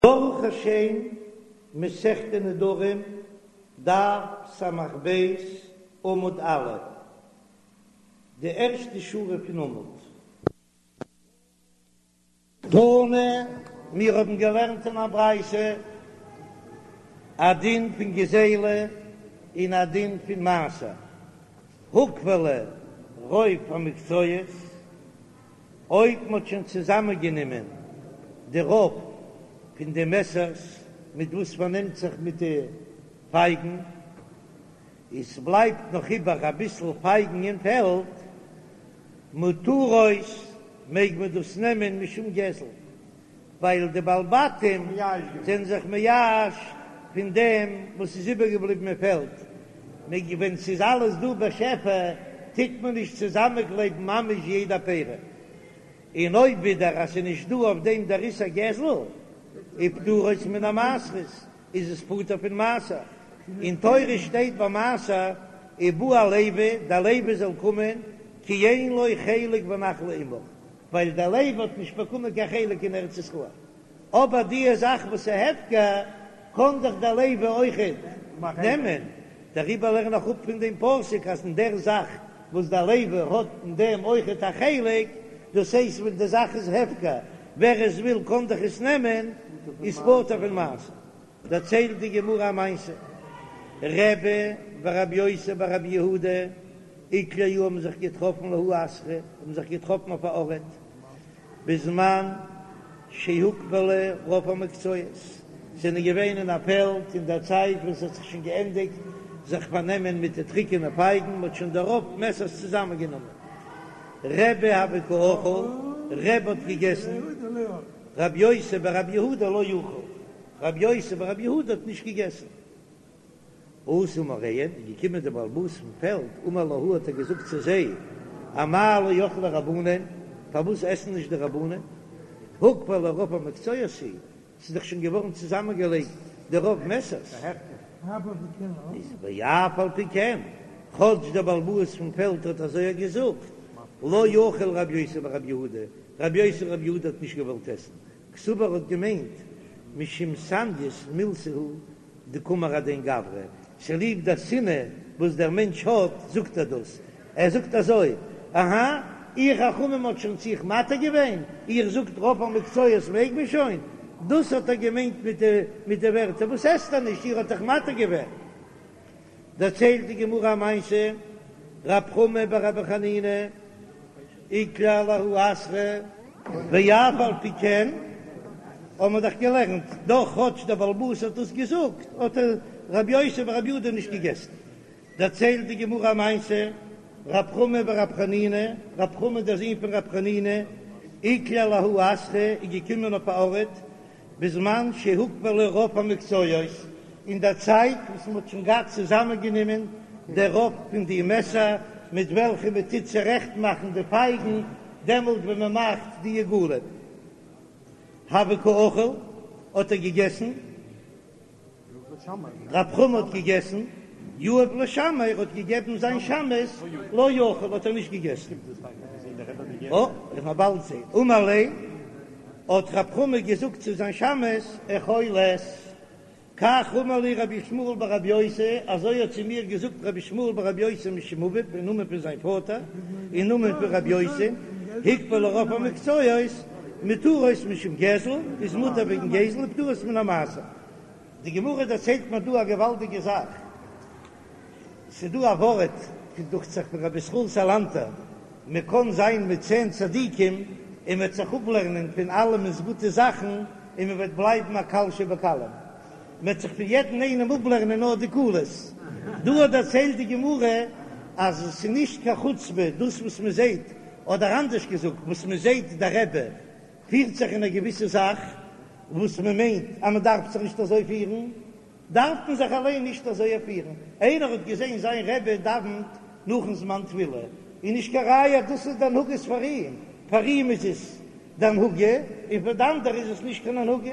ברוך השם, מסכת נדרים, דף ס"ב, עמוד א', די ערשטע שורה פון עמוד. תנא, מיר האבן געלערנט אין א ברייתא א דין פון גזילה און א דין פון מעשר, הוקפלו רוב המקצועות, אויב מ'האט שוין צוזאמענגענומען די רוב פון די מעסערס מיט וואס מ'פארנעמט זיך מיט די פייגן, און ס'בלייבט נאך איבער אביסל פייגן אין פעלד, מותרות, מעג מען דאס נעמען משום גזל, ווייל די בעלי בתים זענען זיך מייאש פון דעם וואס איז איבערגעבליבן אין פעלד, ווען ס'איז אלעס דא בשפע טוט מען נישט צוזאמענקלייבן ממש יעדע פרי, און אויב ווידער אז ס'איז נישט דא אויף דעם דער איסור גזל, ופטורות מן המעשרות, איז עס פטור פון מעשר, אין תורה שטייט ביי מעשר ובא הלוי, דער לוי זאל קומען, כי אין לו חלק ונחלה עמך. ווייל דער לוי האט נישט באקומען קיין חלק אין ארץ ישראל, אבער די זאך וואס איז הפקר קען דאך דער לוי אויכעט נעמען, דעריבער לערן איך אפ פון דעם פסוק אז אין דער זאך וואס דער לוי האט אין דעם אויכעט א חלק, דאס הייסט ווען די זאך איז הפקר, ווער עס וויל קען דאך עס נעמען, איז פטור פון מעשר. דערציילט די גמרא א מעשה, רבי ורבי יוסי בר רבי יהודה איקלעו האבן זיך געטראפן לההוא אתרא, האבן זיך געטראפן אויף א ארט, בזמן שהוקפלו רוב המקצועות, זענען געווען אין א פעלד אין דער צייט ווען ס'האט זיך שוין געענדיגט זיך פארנעמען מיט די טריקענע פייגן, מ'האט שוין די רוב מעסערס צוזאמענגענומען. רבי הוה קא אכיל, רבי האט געגעסן, רבי יוסי ברבי יהודה לא אכיל, רבי יוסי ברבי יהודה האט נישט געגעסן. אתא מאריהן, איז געקומען דער בעל הבית פון פעלד, אמר להו האט ער געזאגט צו זיי, אמאי לא אכלי רבנן, פארוואס עסן נישט די רבנן? הוקפלו רוב המקצועות הוא, ס'איז דאך שוין געווארן צוזאמענגעלייגט די רוב מעסערס. איז ואף על פי כן, כאטש דער בעל הבית פון פעלד האט אזוי געזאגט, לא אכיל רבי יוסי ברבי יהודה, רבי יוסי ברבי יהודה האט נישט געוואלט עסן, קסבר האט געמיינט משום סניות מילתא הוא דקאמר הדין גברא, צוליב דער שנאה וואס דער מענטש האט זאגט ער דאס, ער זאגט אזוי, אהא, איר חכמים האט שוין צו איך מתיר געווען, איר זאגט רוב המקצועות מעג מען שוין, דאס האט ער געמיינט מיט די מיט די ווערטער וואס עסט ער נישט, איר האט דאך מתיר געווען. דערציילט די גמרא א מעשה, רב חמא בר רבי חנינא איקלע לההוא אתרא, ואף על פי כן האבן מיר דאך געלערנט, דאך כאטש דער בעל הבית האט דאס געזאגט, האט רבי יוסי ברבי יהודה נישט געגעסן. דערציילט די גמרא א מעשה, רב חמא בר רב חנינא, רב חמא דער זון פון רב חנינא, איקלע לההוא אתרא, איז געקומען אויף א ארט, בזמן שהוקפלו רוב המקצועות, אין דער צייט וואס מען האט שוין געהאט צוזאמענגענומען דער רוב פון די מעסער מיט וועלכע מען טוט צורעכט מאכן די פייגן, דעמאלט ווען מען מאכט די עיגולים. הוה קא אכיל, האט ער געגעסן. רב חמא האט געגעסן, יהב לשמעיה, ער האט געגעבן זיין שמש, לא אכיל האט ער נישט געגעסן. אה, איך וועל באלד זען. אמר ליה, האט רב חמא געזאגט צו זיין שמש, אכול עס. כך אמר לי רבי ישמעאל בר רבי יוסי, אזוי האט צו מיר געזאגט רבי ישמעאל בר רבי יוסי משום אביו, אין נאמען פון זיין פאטער, אין נאמען פון רבי יוסי, הוקפלו רוב המקצועות, מותרות משום גזל, איז מותר וועגן גזל, ופטורות מן המעשר. די גמרא דערציילט מיר דא א געוואלדיגע זאך, ס'איז דא א ווארט, דוכט זיך פון רבי ישראל סאלאנטער, מען קען זיין מיט צען צדיקים און מען וועט זיך אפלערנען פון אלעמענס גוטע זאכן און מען וועט בלייבן א קל שבקלים, מען וועט זיך פון יעדן איינעם אפלערנען נאר די קולות. דא האט דערציילט די גמרא אז עס איז נישט קיין חוצפה דאס וואס מען זעט, אדער אנדערש געזאגט, וואס מען זעט דער רבי פירט זיך אין א געוויסע זאך וואס מען מיינט אז מען דארף זיך נישט אזוי פירן, דארף מען זיך אליין נישט אזוי פירן. איינער האט געזען זיין רבי דאווענט נאכן זמן תפילה, איז נישט קיין ראיה אז דאס איז די הנהגות פאר אים, פאר אים איז עס די הנהגה, און פאר די אנדערע איז עס נישט קיין הנהגה.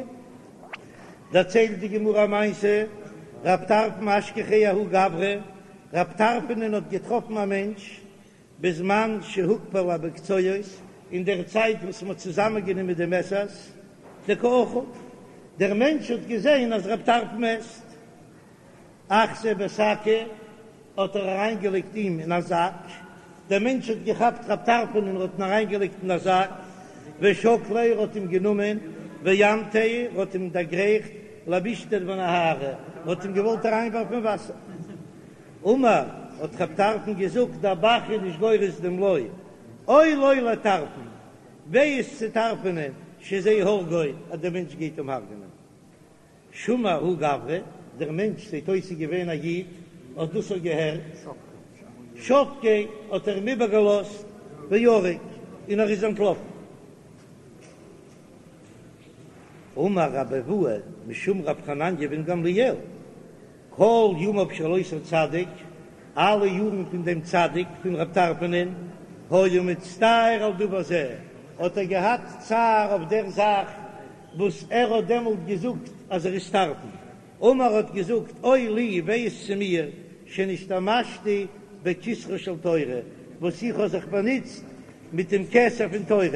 דערציילט די גמרא א מעשה, רב טרפון אשכחיה ההוא גברא, רב טרפונ'ען האט געטראפן א מענטש, בזמן שהוקפלו המקצועות, אין דער צייט וואס מ'האט צוזאמענגענומען די מעסערס, דקא אכיל. דער מענטש האט געזען אז רב טרפון עסט. אחתיה בשקא האט ער אריינגעלייגט אים אין א זאק, דער מענטש האט געכאפט רב טרפון און האט אים אריינגעלייגט אין א זאק, ושקליה ער האט אים גענומען, ואמטיה ער האט אים דערגרייכט למישתא בנהרא, ער האט אים געוואלט אריינווארפן אין וואסער. אמר, האט רב טרפון געזאגט, דער ב"ח איז נישט גורס דעם לא, אוי לו לטרפון, וויי איז צו טרפונען, שזה הורגו, אז דער מענטש גייט אים הרג'נען. שמע ההוא גברא, דער מענטש זעט אויס איז געווען א איד, האט דאס אויך געהערט, שבקיה האט ער אים איבערגעלאזט וערק, און ער איז אנטלאפן. אמר רבי אבהו משום רב חנניה בן גמליאל, כל ימיו של אותו צדיק, אלע יארן פון דעם צדיק פון רב טרפונ'ען, היה מצטער על דבר זה, האט ער געהאט צער אויף דער זאך וואס ער האט דעמאלט געזאגט אז ער איז טרפון. אמר האט געזאגט, אוי לי, וויי איז צו מיר, שנשתמשתי בכתרה של תורה, וואס איך האב זיך באנוצט מיט דעם כתר פון תורה.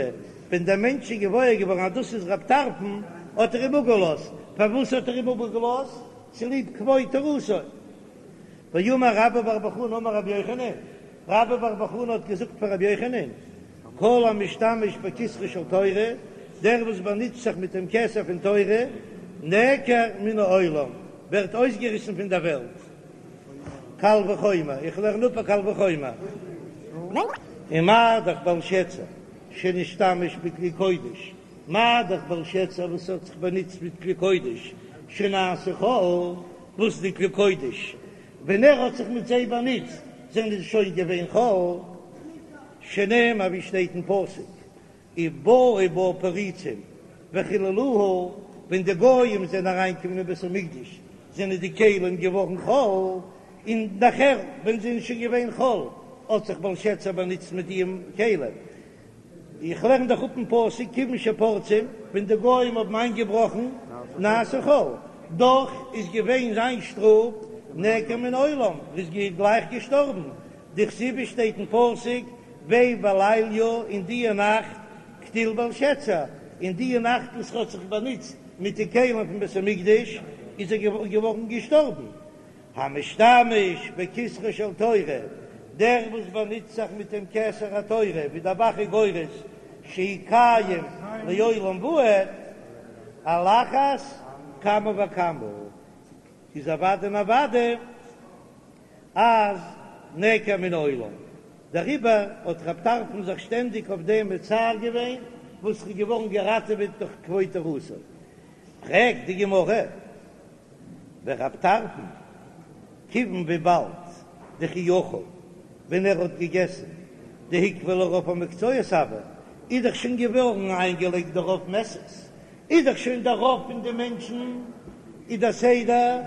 ווען דער מענטש איז געוואויר געווארן אז דאס איז רב טרפון, האט ער אים אפגעלאזט. פארוואס האט ער אים אפגעלאזט? צוליב כבוד תורתו. ואמר רבה בר בר חנה אמר רבי יוחנן, רבה בר בר חנה האט געזאגט פאר רבי יוחנן, כל המשתמש בכתרה של תורה, דער וואס באנוצט זיך מיט דעם כתר פון תורה, נעקר מן העולם, ווערט אויסגעריסן פון דער וועלט. קל וחומר, איך לערן אפ א קל וחומר. ומה דאך בלשצר שנשתמש בכלי קודש, מה דאך בלשצר וואס האט זיך באנוצט מיט כלי קודש שנעשו חול, וואס די כלי קודש ווען ער האט זיך מיט זיי באנוצט זענען זיי שוין געווען חול, שנאמר ווי שטייט אין פסוק ובאו בה פריצים וחללוה, ווען די גויים זענען אריינגעקומען אין בית המקדש זענען די כלים געווארן חול, און נאכער ווען זיי זענען שוין געווען חול האט זיך בלשצר באנוצט מיט די כלים. איך לערן דאך אפ אין פסוק כיוון שפורצים, ווען די גוים האבן איינגעבראכן נעשו חול, דאך איז געווען זיין שטראף נעקר מן העולם, ער איז גלייך געשטארבן, דכתיב שטייט אין פסוק בה בליליא אין דיע נאכט קטיל בלשצר, אין דיע נאכט וואס ער האט זיך באנוצט מיט די כלים פון בית המקדש איז ער געווארן געשטארבן. המשתמש בכתרה של תורה, דער וואס באנוצט זיך מיט דעם כתר התורה, ווי דער ב"ח איז גורס שהוא קיים לעולם ועד, על אחת כמה וכמה, איז אוודאי און אוודאי אז נעקר מן העולם. דעריבער האט רב טרפון זיך שטענדיג אויף דעם מצער געווען, וואס איז געווארן געראטעוועט דורך כבוד תורתו. פרעגט די גמרא. ורב טרפון, כיוון וויבאלד דכי אכל ווען ער האט געגעסן דהוקבע לרוב המקצועות הוה, איז דאך שוין געווארן איינגעלייגט די רוב מעסערס, איז דאך שוין דער רוב פון די מענטשן איז דער סדר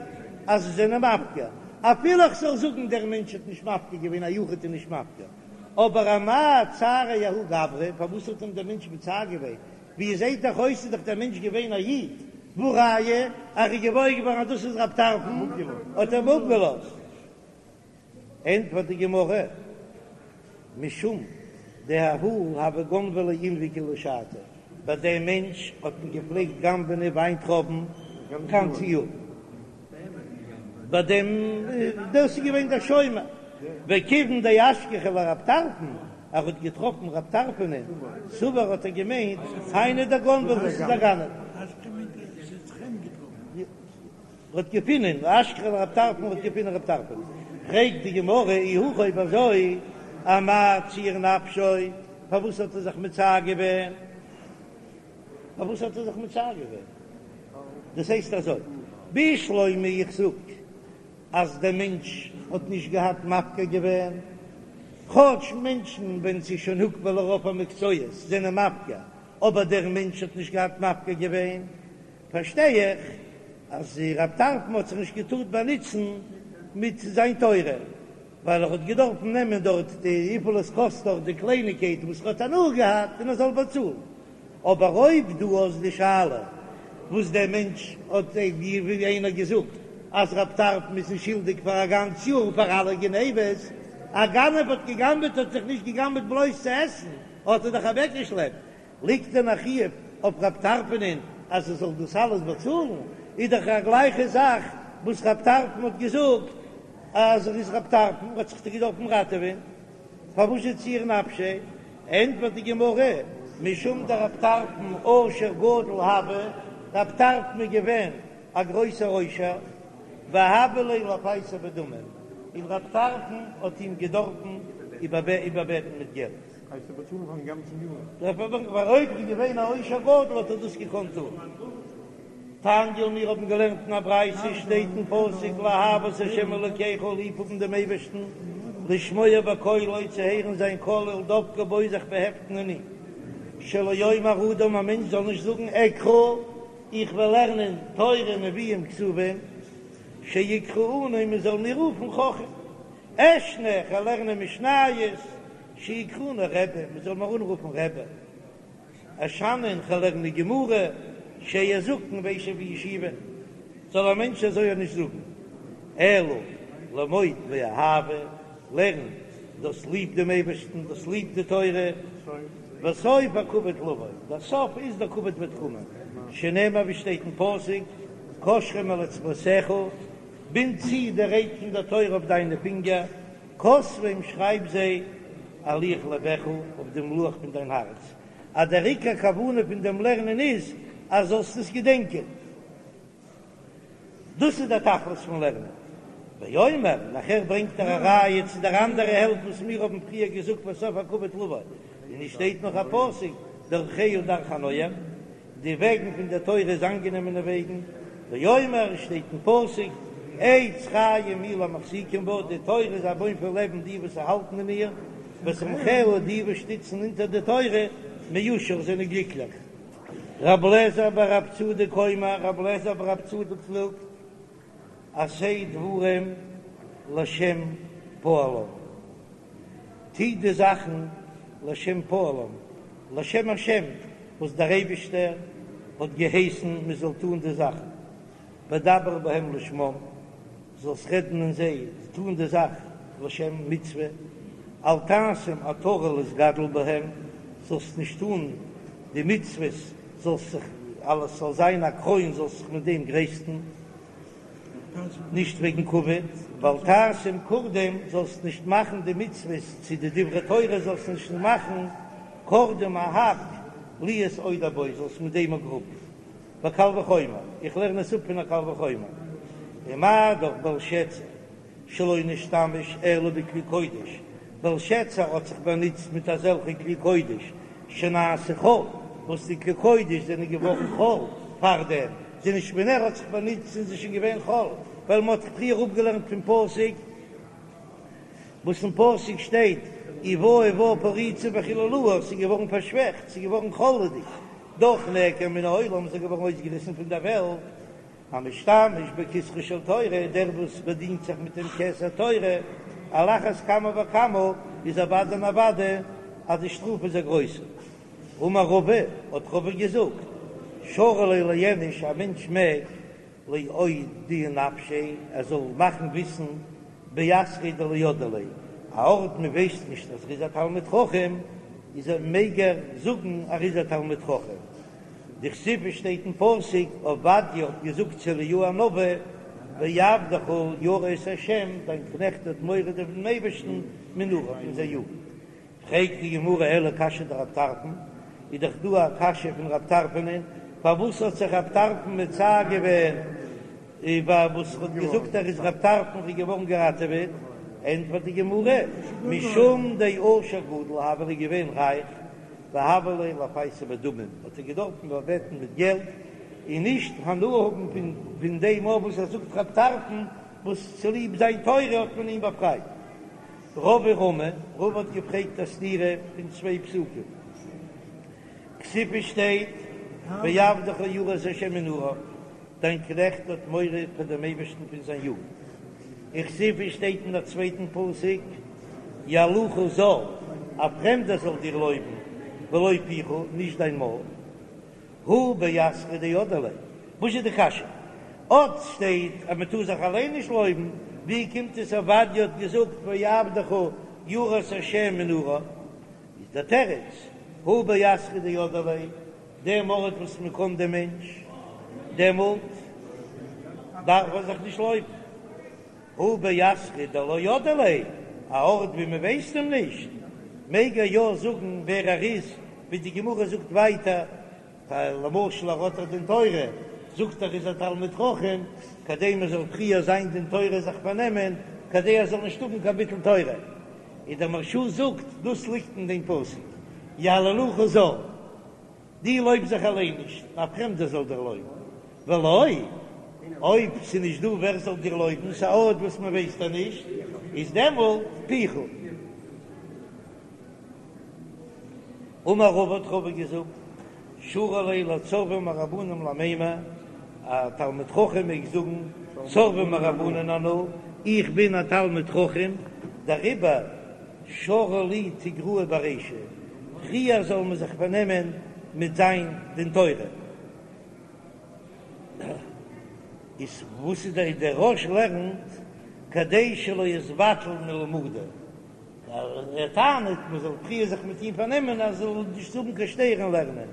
אז זיי זענען מפקיר, אפילו איך זאל זאגן דער מענטש האט נישט מפקיר געווען א יחיד איז נישט מפקיר, אבער אמאי צעריה ההוא גברא, פארוואס האט אים דער מענטש מצער געווען, ווי עס זעהט דאך אויס איז דאך דער מענטש געווען א איד, והא ראיה אז ער איז געוואויר געווארן אז דאס איז רב טרפון האט ער אים אפגעלאזט. ענטפערט די גמרא, משום דההוא הוו גנבי ליה ענבי כולה שתא, ביי דעם מענטש האט מען געפלעגט גנב'נען וויינטרויבן גאנצע יאר, ביי דעם דאס איז געווען דער שומר, וכיוון דאשכחיה לרב טרפון, ער האט געטראפן רב טרפונ'ען, סבר האט ער געמיינט היינו דגנבא דאס איז א גנב. ער האט געפינען אשכחיה לרב טרפון האט געפינען רב טרפון. פרעגט די גמרא אי הכי אויב אזוי אמאי ציער נפשיה פארוואס האט ער זיך מצער געווען? פארוואס האט ער זיך מצער געווען? דאס הייסט אזוי בשלמא איך זאג אז דער מענטש האט נישט געהאט מפקיר געווען, כאטש מענטשן ווען ס'איז שוין הוקבע לרוב המקצועות זענען מפקיר, אבער דער מענטש האט נישט געהאט מפקיר געווען, פארשטיי איך אז רב טרפון האט זיך נישט געטארט באנוצן מיט זיין תורה, ווייל ער האט געדארפן נעמען דארט די וויפיל עס קאסט דארט די קלייניגקייט וואס ער האט הנאה געהאט און ער זאל באצאלן. אבער אויב דו האסט די שאלה וואס דער מענטש האט ווי איינער געזאגט אז רב טרפון איז נישט שולדיג פאר א גאנץ יאר פאר אלע גניבות, א גנב האט געגנבעט האט זיך נישט געגנבעט בלויז צו עסן האט ער דאך אוועקגעשלעפט, ליגט דען א חיוב אויף רב טרפונ'ען? אז ער זאל דאס אלעס באצאלן, איז דאך א גלייכע זאך וואס רב טרפון האט געזאגט אז ער איז רב טרפון האט זיך דאך געדארפן ראטעווען, פארוואס איז ציער נפשיה? ענטפערט די גמרא, משום דרב טרפון עושר גדול הוה, רב טרפון איז געווען א גרויסער עושר, והוה ליה לפייסו בדמים, און רב טרפון האט אים געדארפן איבערבעטן מיט געלט. הייסט ער באצאלן פארן גאנצן יאר? ווייל אויב איז געווען א עושר גדול האט ער דאס געקאנט טון. תניא, מיר האבן געלערנט אין א ברייתא, שטייט אין פסוק לאהבה את ה' אלוקיך, ליב האבן דעם אייבערשטן, לשמוע בקולו, צו הערן זיין קול, ולדבקה בו, זיך באהעפטן אין אים, שלא יאמר אדם, א מענטש זאל נישט זאגן אקרא, איך וועל לערנען תורה נביאים כתובים, שיקראוני, מען זאל מיר רופן חכם, אשנה, איך וועל לערנען משניות, שיקראוני רבי, מען זאל מיר אנרופן רבי. אשנן, כ'וועל לערנען גמרא, שאהיה זקן ואשב בישיבה, זאל א מענטש אזוי נישט זאגן, אלא למוד מאהבה, לערן דו האסט ליב דעם אייבערשטן, דו האסט ליב די תורה, וסוף הכבוד לבוא, דער סוף איז דער כבוד וועט קומען, שנאמר ווי שטייט אין פסוק, קשרם על אצבעותיך, בינד צו די רייד פון דער תורה אויף דיינע פינגער, כתבם שרייב זיי על לוח לבך אויף דעם לוח פון דיין הארץ, אז דער עיקר כוונה פון דעם לערנען איז אז זאלסט עס געדענקען, דאס איז דער תכלית פון לערנען. ואומר, נאכער ברענגט ער א ראיה צו דער אנדערע העלפט וואס מיר האבן פריער געזאגט וסוף הכבוד לבוא, און עס שטייט נאך א פסוק דרכיה דרכי נועם, די וועגן פון דער תורה איז אנגענעמענע וועגן, ואומר, עס שטייט אין פסוק, עץ חיים היא למחזיקים בה, די תורה איז א בוים פון לעבן די וואס האלטן אין איר, ותומכיה, די וואס שטיצן אונטער די תורה, מאושר, זענען גליקליך. רב לעזער בר רב צדוק אומר, רב לעזער בר רב צדוק זאגט, עשה דברים לשם פועלם, טו די זאכן לשם פועלם, לשם השם, וואס דער אייבישטער האט געהייסן מען זאל טון די זאכן, ודבר בהם לשמם, זאלסט רעדן אין זיי, טון די זאך לשם מצוה, אל תעשם עטרה להתגדל בהם, זאלסט נישט טון די מצוות, זאלסט זיך, אלעס זאל זיין א קרוין, זאלסט זיך מיט דעם גרייסטן. נישט וועגן כבוד, ואל תעשם קורדום, זאלסט נישט מאכן די מצוות צו די דברי תורה זאלסט נישט מאכן קורדום א האק להיות עודר בו, זאלסט מיט דעם גראבן, וקל וחומר, איך לערן עס אפ פון א קל וחומר, ומה דאך בלשצר שלא נשתמש אלא בכלי קודש, בלשצר האט זיך באנוצט מיט אזעלכע כלי קודש שנעשו חול, וואס די כלי קודש זענען געווארן חול פארדעם, זענען נישט ווען ער האט זיך באנוצט זענען זיי שוין געווען חול, ווייל מען האט פריער אפגעלערנט פון פסוק וואס אין פסוק שטייט ובאו בה פריצים וחללוה, ס'איז געווארן פארשוועכט, ס'איז געווארן חול'דיג, דאך נעקר מן העולם, ס'איז געווארן אויסגעריסן פון דער וועלט. המשתמש בכתרה של תורה, דער וואס באדינט זיך מיט דעם כתר תורה, על אחת כמה וכמה, איז אוודאי און אוודאי אז די שטראף איז א גרויסע. אמר רבא, האט רבא געזאגט, שרי ליה לאיניש, א מענטש מעג לאודועי נפשיה, ער זאל מאכן וויסן באתרא דלא ידעי ליה, א ארט מען ווייסט נישט אז ער איז א תלמיד חכם, איז ער מעג ער זאגן ער איז א תלמיד חכם. דכתיב שטייט אין פסוק, עובדיה האט געזאגט צו אליהו הנביא, ועבדך ירא את ה', דיין קנעכט האט מורא דעם אייבערשטן מנעוריו פון זיין יוגנט. פרעגט די גמרא אלא קשיא דרב טרפון, איז דאך דא א קשיא פון רב טרפונ'ען, פארוואס האט זיך רב טרפון מצער געווען איבער וואס ער האט געזאגט ער איז רב טרפון איז געווארן געראטעוועט, ענטפערט די גמרא, משום דעושר גדול הוה, ער איז געווען רייך, והוה ליה לפייסו בדמים, האט ער געדארפן באבעטן מיט געלט, און נישט הנאה האבן פון פון דעם אויף וואס ער זאגט רב טרפון, וואס צוליב זיין תורה האט מען אים באפרייט. רבא רמי, רבא האט געפרעגט א סתירה פון צוויי פסוקים, כתיב שטייט ועבדך ירא את ה' מנעוריו, דיין קנעכט האט מורא פאר דעם אייבערשטן פון זיין יוגנט. וכתיב שטייט אין א צווייטן פסוק, יהללך זר, א פרעמדער זאל דיר לויבן, ולא פיך, נישט דיין מויל. הא באתרא דידעי ליה. וואס איז די קשיא? אט שטייט אז מען טאר זיך אליין נישט לויבן, ווי קומט עס עובדיה האט געזאגט ועבדך ירא את ה' מנעוריו? איז דער תירוץ, הא באתרא דידעי ליה. דעם ארט וואס מען קען דעם מענטש, דעמאלט דארף ער זיך נישט לויבן. הא באתרא דלא ידעי ליה, א ארט ווי מען ווייסט אים נישט, מעג ער יא זאגן ווער ער איז, ווי די גמרא זאגט ווייטער, למשל ער האט א דין תורה, זאגט ער איז א תלמיד חכם, כדי מען זאל פריער זיין דין תורה זיך פארנעמען, כדי ער זאל נישט האבן קיין ביטול תורה. און דער מהרש"א זאגט, דאס ליגט אין דעם פסוק, יהללוך זר, דו לויב זיך אליין נישט, א פרעמדער זאל דיר לויבן, ולא, אויב ס'איז נישט דא ווער זאל דיר לויבן, ס'איז א ארט וואס מען ווייסט דיר נישט, איז דעמאלט פיך. אמר רבא האט רבא געזאגט, שרי ליה לצורבא מרבנן למימר, א תלמיד חכם מעג זאגן צורבא מרבנן אנא, איך בין א תלמיד חכם, דעריבער שרו לי תיגראי ברישא, פריער זאל מען זיך פארנעמען מיט זיין דין תורה. איז וואס איז דער דער רא"ש לערנט כדי שלא יתבטל מלמודא, ער טענה'ט מען זאל פריער זיך מיט אים פארנעמען אז ער זאל נישט האבן קיין שטער אין לערנען.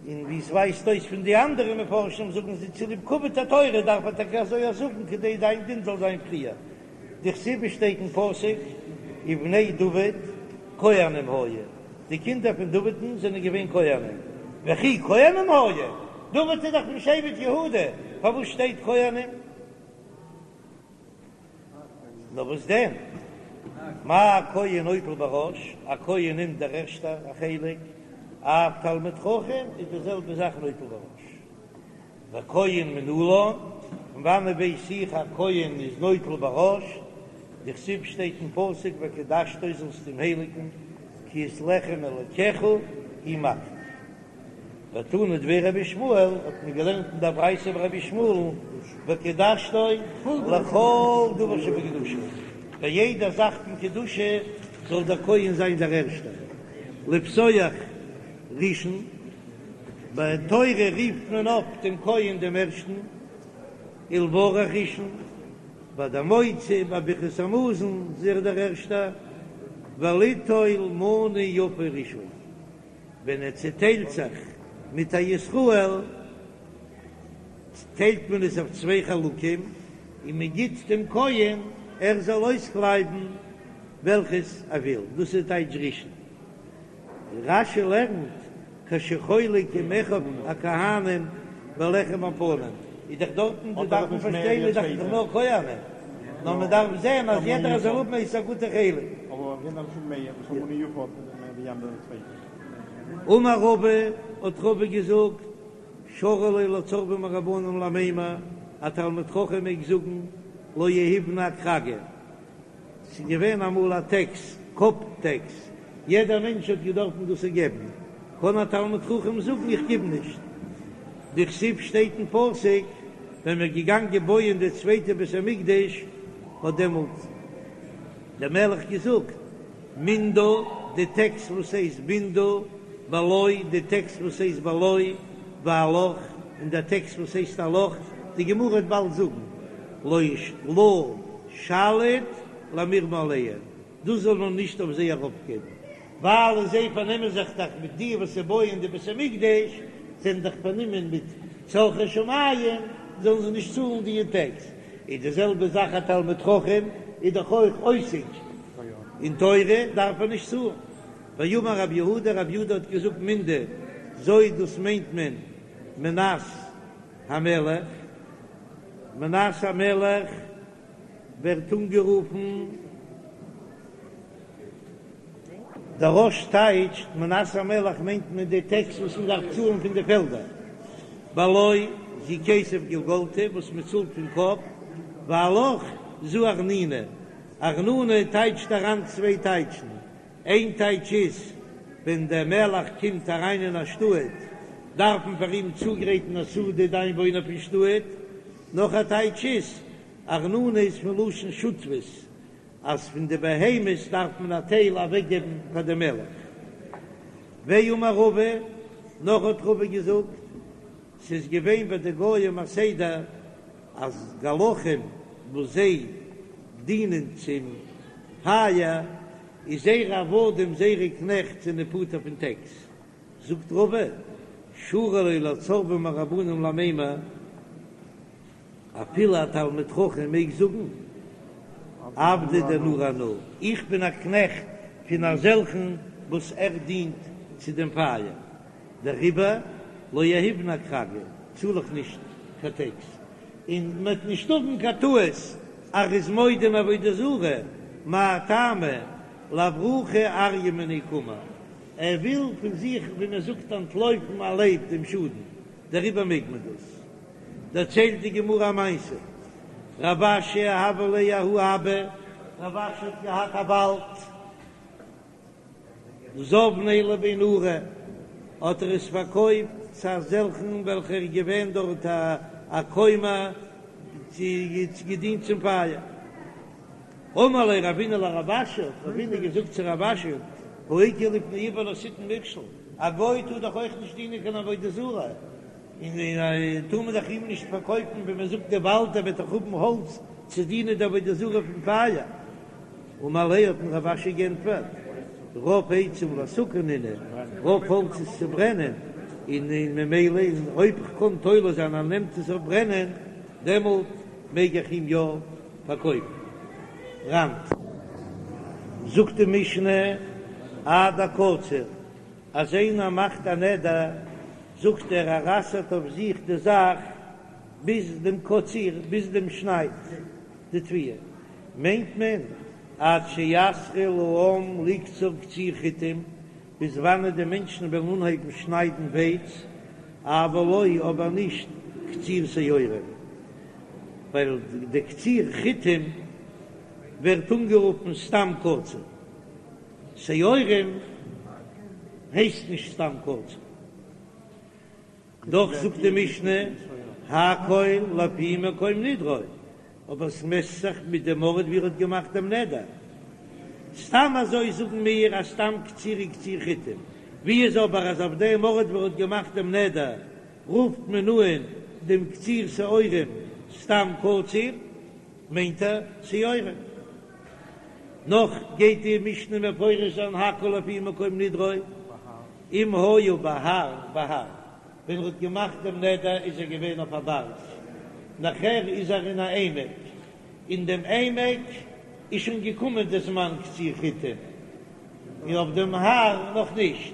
און ווי עס ווייזט אויס פון די אנדערע מפרשים זאגן זיי צוליב כבוד התורה דארף ער טאקע אזוי זאגן כדי זיין דין זאל זיין פריער, דכתיב שטייט אין פסוק ובני דוד כהנים היו, די קינדער פון דוד'ן זענען געווען כהנים, וכי כהנים היו? דוד איז דאך פון שבט יהודה, פארוואס שטייט כהנים? נאר וואס דען? מה כהן נוטל בראש, א כהן נעמט דער ערשטער א חלק, אף תלמיד חכם איז די זעלבע זאך נוטל בראש. וכהן מנלן, פון וואנעט ווייס איך א כהן איז נוטל בראש? דכתיב שטייט אין פסוק וקדשתו זאלסט אים הייליגן, כי את לחם אלקיך הוא מקריב. ותנא דבי רבי ישמעאל, האט מען געלערנט אין דער ברייתא ביי רבי ישמעאל'ן, וקדשתו לכל דבר שבקדושה, ביי יעדע זאך פון קדושה זאל דער כהן זיין דער ערשטער, לפתוח ראשון, ביי תורה רופט מען אויף דעם כהן דעם ערשטן, ולברך ראשון, ביי דער מוציא, ביי ברכת המזון איז ער דער ערשטער, וליטול מנה יפה ראשון. ווען ער צעטיילט זיך מיט א ישראל, טיילט מען עס אויף צוויי חלקים, און מען גיט דעם כהן ער זאל אויסקלייבן וועלכעס ער וויל, דאס איז טייטש ראשון. רש"י לערנט, כשחולק עם אחיו הכהנים בלחם הפנים, איז דאך דארטן די דארף מען פארשטיין איז דאך נאר כהנים, נאר מען דארף זען אז יעדער זאל האבן עס א גוטע חלק. אמר רבא, האט רבא געזאגט, שרי ליה לצורבא מרבנן למימר, א תלמיד חכם מעג זאגן, לא יהיבנא אכרגא, ס'איז געווען אמאל א טעקס, קאפ טעקס, יעדער מענטש האט געדארפן דאס געבן, קען א תלמיד חכם זאגן איך גיב נישט, דכתיב שטייט אין פסוק, ווען מ'איז געגאנגען בויען די צווייטע בית המקדש, האט דעמאלט דער מלך געזאגט, מנדה, די טעקס וואס הייסט מנדה, בלא, די טעקס וואס הייסט בלא, ועלך, און די טעקס וואס הייסט עלך, די גמרא וועט באלד זאגן, לא לא שליט למירמא עלייהו, דאס זאל מען נישט אויף זיי ארויפגעבן, ווייל זיי פארנעמען זיך דאך מיט די וואס בויען די בית המקדש, זענען דאך פארנומען מיט צרכי שמים, זאלן זיי נישט צאלן די טעקס. איז די זעלבע זאך א תלמיד חכם איז דאך אויך עוסק אין תורה דארף ער נישט צאלן. ואמר רב יהודה, רב יהודה האט געזאגט מנדה זו דאס מיינט מען מנת המלך, מנת המלך ווערט אנגערופן. דער רא"ש טייטשט מנת המלך מיינט מען די טעקס וואס מען דארף צאלן פון די פעלדער, בלא זו כסף גולגלתא וואס מען צאלט פון קאפ, ועלך זו ארנונא, ארנונא טייטשט אריין צוויי טייטשן, איין טייטש איז ווען דער מלך קומט אריין אין א שטאט דארף מען פאר אים צוגרייטן א סעודה די איינוואוינער פון שטאט, נאך א טייטש איז ארנונא איז פון לשון שותפות אז פון די בהמות דארף מען א טייל אוועקגעבן פאר די מלך. ואמר רבא, נאך האט רבא געזאגט, ס'איז געווען ביי די גוים א סדר אז גלחים וואס זיי דינען צום פייער, איז זייערע עבדים זייערע קנעכט זענען פטור פון טעקס. זאגט רבא, שרי ליה לצורבא מרבנן למימר, אפילו א תלמיד חכם מעג זאגן עבדא דנורא אנא, איך בין א קנעכט פון אזעלכן וואס ער דינט צו דעם פייער, דעריבער לא יהיבנא אכרגא, צאל איך נישט קיין טעקס, און מען וועט נישט האבן קיין טעות אז ער איז מודה אין עבודה זרה, מאי טעמא לאברוחי אריא מיניה קאמר, ער וויל פון זיך ווי מען זאגט אנטלויפן א לייב דעם שאדן, דעריבער מעג מען דאס. דערציילט די גמרא א מעשה, רב אשי הוה ליה ההוא אבא, רב אשי האט געהאט א וואלד, זבניה לבי נורא, האט ער עס פארקויפט צו אזעלכן וועלכער איז געווען דארט א כומר צו געדינט צום פייער. אמר ליה רבינא לרב אשי, האט רבינא געזאגט צו רב אשי, האיכא לפני עור לא תתן מכשול, א גוי טאר דאך אויך נישט דינען קיין עבודה זרה, און טאר מען דאך אים נישט פארקויפן ווי מען זאגט די וואלד ער וועט דאך האבן האלץ צו דינען די עבודה זרה פון פייער. אמר ליה האט אים רב אשי גענטפערט, רוב עצים להסקה נינהו, רוב האלץ איז צו ברענען, און ממילא אויב כ'קען תולה זיין אז ער נעמט עס אויף ברענען, דעמאלט מעג איך אים יא פארקויפן. רנ. זאגט די משנה עד הקציר, אז איינער מאכט א נדר זאגט ער ער אסר'ט אויף זיך די זאך ביז דעם קציר, ביז דעם שנייד די תבואה, מיינט מען עד שיתחיל העם לקצור קציר חיטים, ביז וואנעט די מענטשן וועלן אנהייבן שניידן ווייץ, אבל לא אבער נישט קציר שעורים, ווייל די קציר חיטים ווערט אנגערופן סתם קציר, שעורים הייסט נישט סתם קציר. דאך זאגט די משנה הכל לפי מקום נדרו, אבער עס מעסט זיך מיט דעם ארט ווי ער האט געמאכט דעם נדר. סתם אזוי זאגן מיר אז סתם קציר איז קציר חיטים, ווי איז אבער אז אויף דעם ארט ווי ער האט געמאכט דעם נדר רופט מען אן דעם קציר שעורים סתם קציר, מיינט ער שעורים. נאך גייט די משנה מפרש זיין הכל לפי מקום נדרו, אם היה בהר בהר, ווען ער האט געמאכט דעם נדר איז ער געווען אויף א בארג, נאכער איז ער אין א עמק, אין דעם עמק איז שוין געקומען די זמן קציר חיטים, און אויף דעם הר נאך נישט,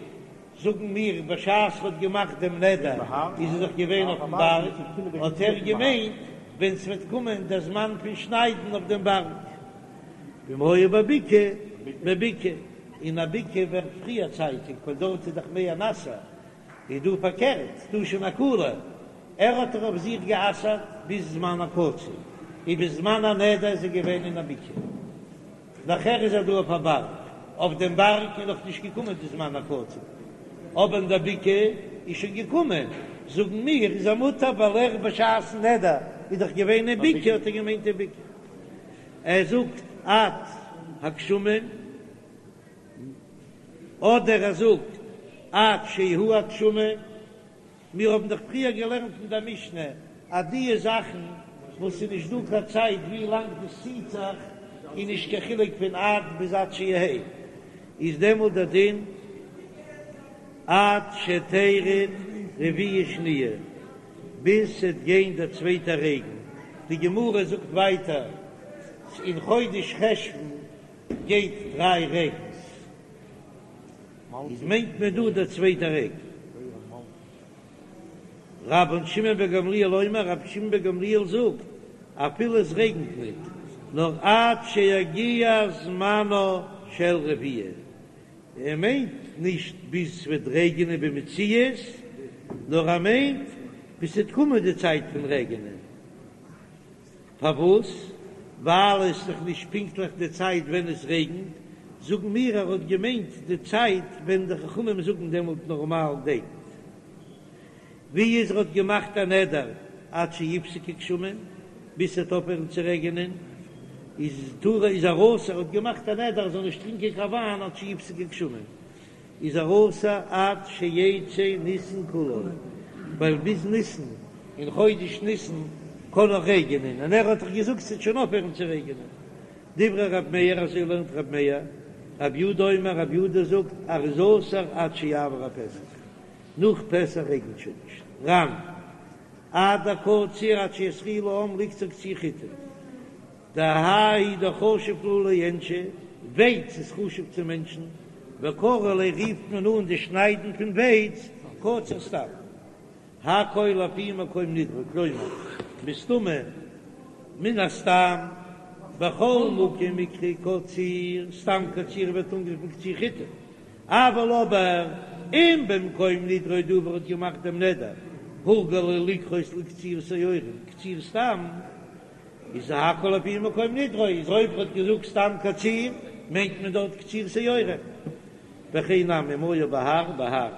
זאגן מיר בשעת ער האט געמאכט דעם נדר איז ער דאך געווען אויפן בארג, האט ער געמיינט ווען ס'וועט קומען דער זמן פון שניידן אויף דעם בארג. ואם היה בבקעה, בבקעה, אין א בקעה ווערט פריער צייטיג ווייל דארט איז דאך מער נאסער, איז דא פארקערט, דא שוין א קולא, ער האט דאך אויף זיך גע'אסר'ט ביז זמן הקציר, און ביז זמן הנדר איז ער געווען אין א בקעה, נאכער איז ער דא אויף א בארג, אויף דעם בארג איז נאך נישט געקומען די זמן הקציר, אבער אין דער בקעה איז שוין געקומען, זאגן מיר איז ער מותר ווייל ער בשעת'ן נדר איז דאך געווען אין בקעה האט ער געמיינט אין בקעה. ער זאגט עד הגשמים, אדער ער זאגט עד שיהו הגשמים, מיר האבן דאך פריער געלערנט אין דער משנה אז די זאכן וואס איז נישט דא קיין צייט ווי לאנג דאס ציט זיך, איז נישט קיין חילוק פון עד ביז עד שיהא, איז דעמאלט דער דין עד שתרד רביעה שניה. ביז ס'עט גיין דער צווייטער רעגן, די גמרא זאגט ווייטער אין חודש חשוון גייט דריי רעגנס, איז מיינט מען דא דער צווייטער רעגן. רבן שמעון בן גמליאל אומר, רבי שמעון בן גמליאל זאגט, אפילו עס רעגנט ניט, נאר עד שיגיע זמנה של רביעה, ער מיינט נישט ביז ס'וועט רעגענען במציאות, נאר ער מיינט ביז ס'וועט קומען די צייט פון רעגענען. פארוואס? ווייל עס איז דאך נישט פונקטליך די צייט ווען עס רעגנט, זאגן מיר ער האט געמיינט די צייט ווען די חכמים זאגן דעמאלט נארמאל רעגנט. ווי איז ער האט געמאכט א נדר עד שיפסקו גשמים, ביז ס'וועט אויפהערן צו רעגענען, איז טאר איז ער אסור, ער האט געמאכט א נדר ער זאל נישט טרינקען קיין וויין עד שיפסקו גשמים, איז ער אסור עד שיצא ניסן כולו, ווייל ביז ניסן, אין חודש ניסן קען נאך רעגענען, און ער האט דאך געזאגט ס'וועט שוין אויפהערן צו רעגענען. דברי ר' מאיר, אזוי לערנט ר' מאיר, רב יודא אומר, רב יודא זאגט ער איז אסור עד שיעבור הפסח. נאך פסח רעגנט שוין נישט. ר"ן, עד הקציר עד שיתחיל העם לקצור קציר חיטים. דהאי דחשיב להו לאינשי, ווייץ איז חשוב צו מענטשן, וקרו ליה רופט מען אן די שניידן פון ווייץ קציר סתם. הכל לפי מקום נדרו, כלומר, מסתמא, מן הסתם, בכל מקום מיקרי קציר, סתם קציר ווערט אנגערופן קציר חיטים, אבל אבער אם במקום נדרו דא וואו ער האט געמאכט דעם נדר, הורגלו לקרות לקציר שעורים, קציר סתם, איז הכל לפי מקום נדרו, איז אויב ער האט געזאגט סתם קציר, מיינט מען דארט קציר שעורים. וכן נמי אם היה בהר בהר,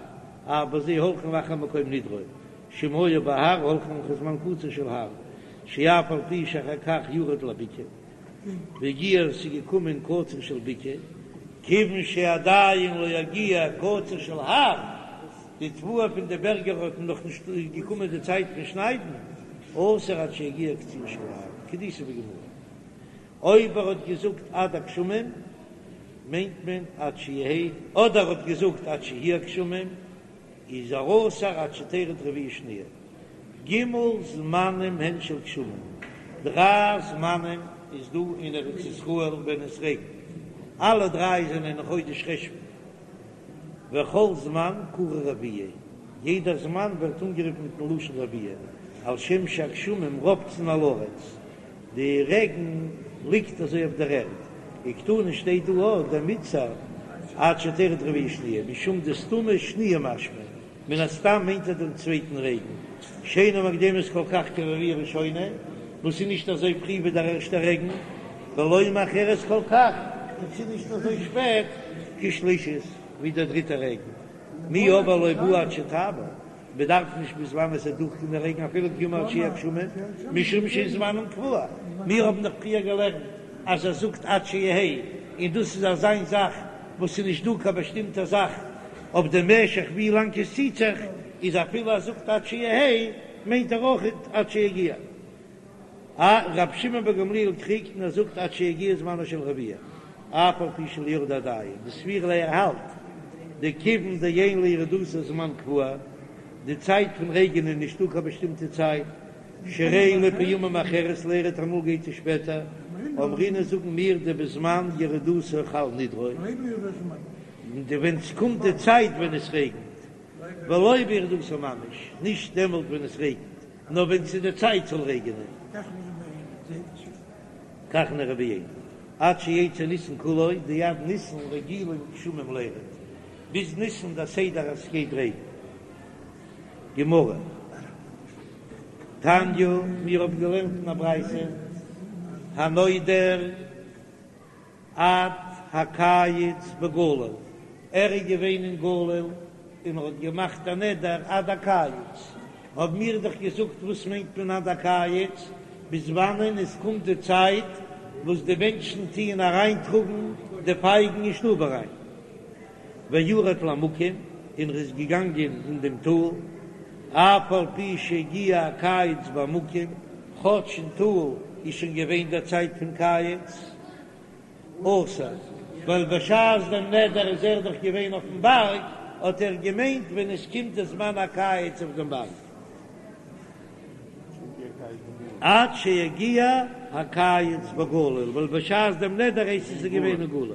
אף בזה הולכין אחר מקום נדרו, שאם היה בהר הולכין אחר זמן קציר של הר, שאף על פי שאחר כך ירד לבקעה, והגיע ס'איז געקומען קציר של בקעה, כיוון שעדיין לא הגיע קציר של הר, די תבואה פון די בערגער האט נאך נישט געקומען די צייט פון שניידן, אסור עד שיגיע קציר של הר, כדאיתא בגמרא. אויב ער האט געזאגט עד הגשמים מיינט מען עד שיהא, אדער ער האט געזאגט עד שיהי' הגשמים, איז ער אסור עד שתרד רביעה שניה. ג' זמנים הן של גשמים, דריי זמנים איז דא אין ארץ ישראל ווען עס רעגנט, אלע דריי זענען אין חודש חשוון, וכל זמן קרוי רביעה, יעדער זמן ווערט אנגערופן מיטן לשון רביעה, על שם שהגשמים רובצין על הארץ, די רעגן ליגט אזוי אויף דער ערד, וקתני שטייט דא אויך דמיתסר עד שתרד רביעה שניה, משום דסתמא שניה משמע, מן הסתם מיינט ער דעם צווייטן רעגן, שאינה מוקדמת כל כך כרביעה ראשונה, וואס איז נישט אזוי פרי ווי דער ערשטער רעגן, ולא מאחרת כל כך, און ס'איז נישט אזוי שפעט כשלישית ווי דער דריטער רעגן, מיהו אבער לא בעי עד שתעבור. מען דארף נישט ביז וואנען עס וועט דורכגיין דער רעגן אפילו כי אמר עד שיהיו גשמים, משום שאין זמנם קבוע, מיר האבן דאך פריער געלערנט אז ער זאגט עד שיהא, און דאס איז אזיין זאך וואס איז נישט דא קיין באשטימטע זאך אויף די משך ווי לאנג עס ציט זיך, איז אפילו ער זאגט עד שיהא מיינט ער אויך עד שיגיע. א רבי שמעון בן גמליאל קריגט און ער זאגט עד שיגיע זמנו של רביעה, אף על פי שלא ירדה עדיין, דסבירא ליה ער האלט דכיון דאין לירידתה זמן קבוע, די צייט פון רעגען איז נישטא קיין באשטימטע צייט, שהרי לפעמים מאחרת לירד אמאל גייט עס שפעטער, אמרינן זאגן מיר דבזמן ירידתה חל נדרו, ווען ס'קומט די צייט ווען עס רעגנט, ולא בירידתה ממש, נישט דעמאלט ווען עס רעגנט. נאר ווען ס'איז די צייט זאל רעגענען. כך נראה בעיני. עד שיצא ניסן כולו, דעד ניסן רגילים גשמים לירד, ביז ניסן דער סדר אז ס'גייט רעגן. גמרא. תניא, מיר האבן געלערנט אין א ברייתא, הנודר. עד הקיץ בגליל, ער איז געווען אין גליל און ער האט געמאכט א נדר עד הקיץ, האבן מיר דאך געזאגט וואס מיינט מען עד הקיץ, ביז וואנען עס קומט די צייט וואס די מענטשן טוען אריינטראגן די פייגן אין שטוב אריין, וירד לעמקים, און ער איז געגאנגען אין דעם טאל, אף על פי שהגיע הקיץ בעמקים, כאטש אין טאל איז שוין געווען דער צייט פון קיץ, אסור, ווייל בשעת דעם נדר איז ער דאך געווען אויפן בארג, האט ער געמיינט ווען עס קומט דער זמן הקיץ אויף דעם בארג. עד שיגיע הקיץ בגליל, ווייל בשעת דעם נדר הייסט עס איז געווען אין גליל.